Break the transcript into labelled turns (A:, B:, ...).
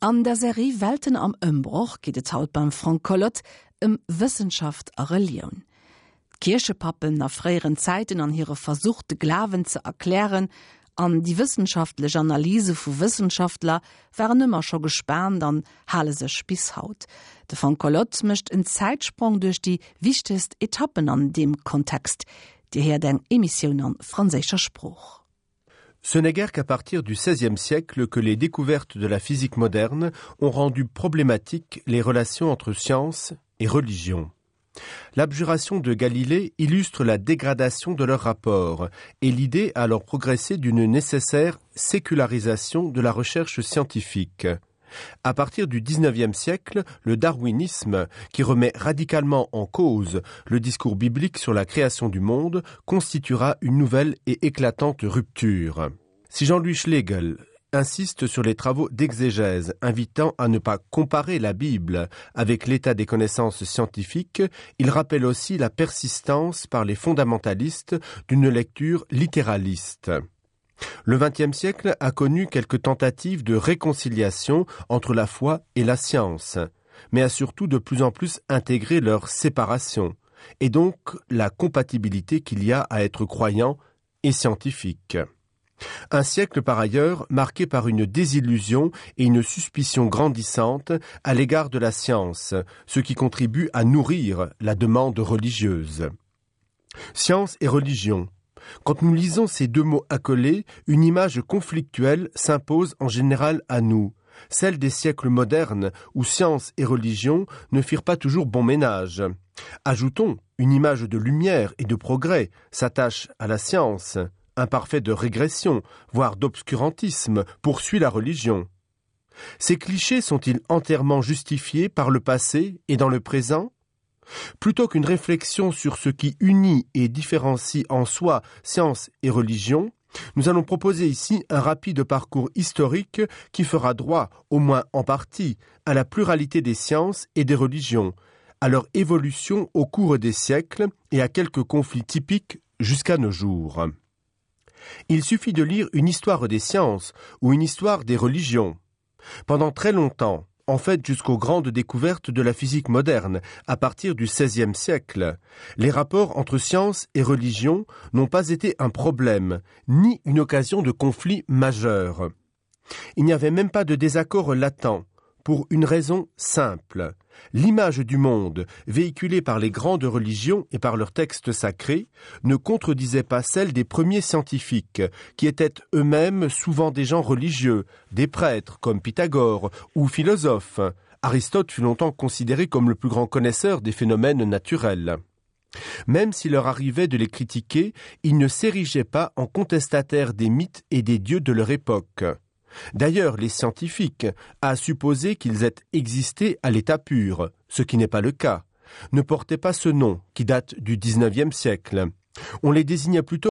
A: An der Serie Welten am Ëmbroch geet et haut beim Frank Collot ëm Wëssenschaft a Relioun. D'Kierchepappen a fréieren Zäiten an hire Versuch de Glawen ze erklären an déi wëssenschaftlech Analyse vu Wëssenschaftler waren ëmmer scho gespaant an hale sech bis haut. De Frank Collot mécht en Zäitsprong duerch déi wichtegst Etappen an deem Kontext. Dir héiert eng Emissioun an franséischer Sprooch.
B: Ce n'est guère qu'à partir du XVIe siècle que les découvertes de la physique moderne ont rendu problématiques les relations entre science et religion. L'abjuration de Galilée illustre la dégradation de leur rapport et l'idée a alors progressé d'une nécessaire sécularisation de la recherche scientifique. À partir du XIXe siècle, le darwinisme, qui remet radicalement en cause le discours biblique sur la création du monde, constituera une nouvelle et éclatante rupture. Si Jean-Louis Schlegel insiste sur les travaux d'exégèse invitant à ne pas comparer la Bible avec l'état des connaissances scientifiques, il rappelle aussi la persistance par les fondamentalistes d'une lecture littéraliste. Le XXe siècle a connu quelques tentatives de réconciliation entre la foi et la science, mais a surtout de plus en plus intégré leur séparation et donc la compatibilité qu'il y a à être croyant et scientifique. Un siècle par ailleurs marqué par une désillusion et une suspicion grandissante à l'égard de la science, ce qui contribue à nourrir la demande religieuse. Science et religion. Quand nous lisons ces deux mots accolés, une image conflictuelle s'impose en général à nous, celle des siècles modernes où science et religion ne firent pas toujours bon ménage. Ajoutons une image de lumière et de progrès s'attache à la science, imparfait de régression, voire d'obscurantisme, poursuit la religion. Ces clichés sont-ils entièrement justifiés par le passé et dans le présent? Plutôt qu'une réflexion sur ce qui unit et différencie en soi science et religion, nous allons proposer ici un rapide parcours historique qui fera droit, au moins en partie, à la pluralité des sciences et des religions, à leur évolution au cours des siècles et à quelques conflits typiques jusqu'à nos jours. Il suffit de lire une histoire des sciences ou une histoire des religions. Pendant très longtemps, en fait jusqu'aux grandes découvertes de la physique moderne à partir du XVIe siècle, les rapports entre science et religion n'ont pas été un problème, ni une occasion de conflit majeur. Il n'y avait même pas de désaccord latent, pour une raison simple. L'image du monde, véhiculée par les grandes religions et par leurs textes sacrés, ne contredisait pas celle des premiers scientifiques, qui étaient eux-mêmes souvent des gens religieux, des prêtres comme Pythagore ou philosophes. Aristote fut longtemps considéré comme le plus grand connaisseur des phénomènes naturels. Même s'il leur arrivait de les critiquer, ils ne s'érigeaient pas en contestataires des mythes et des dieux de leur époque. D'ailleurs, les scientifiques, à supposer qu'ils aient existé à l'état pur, ce qui n'est pas le cas, ne portaient pas ce nom qui date du XIXe siècle. On les désignait plutôt.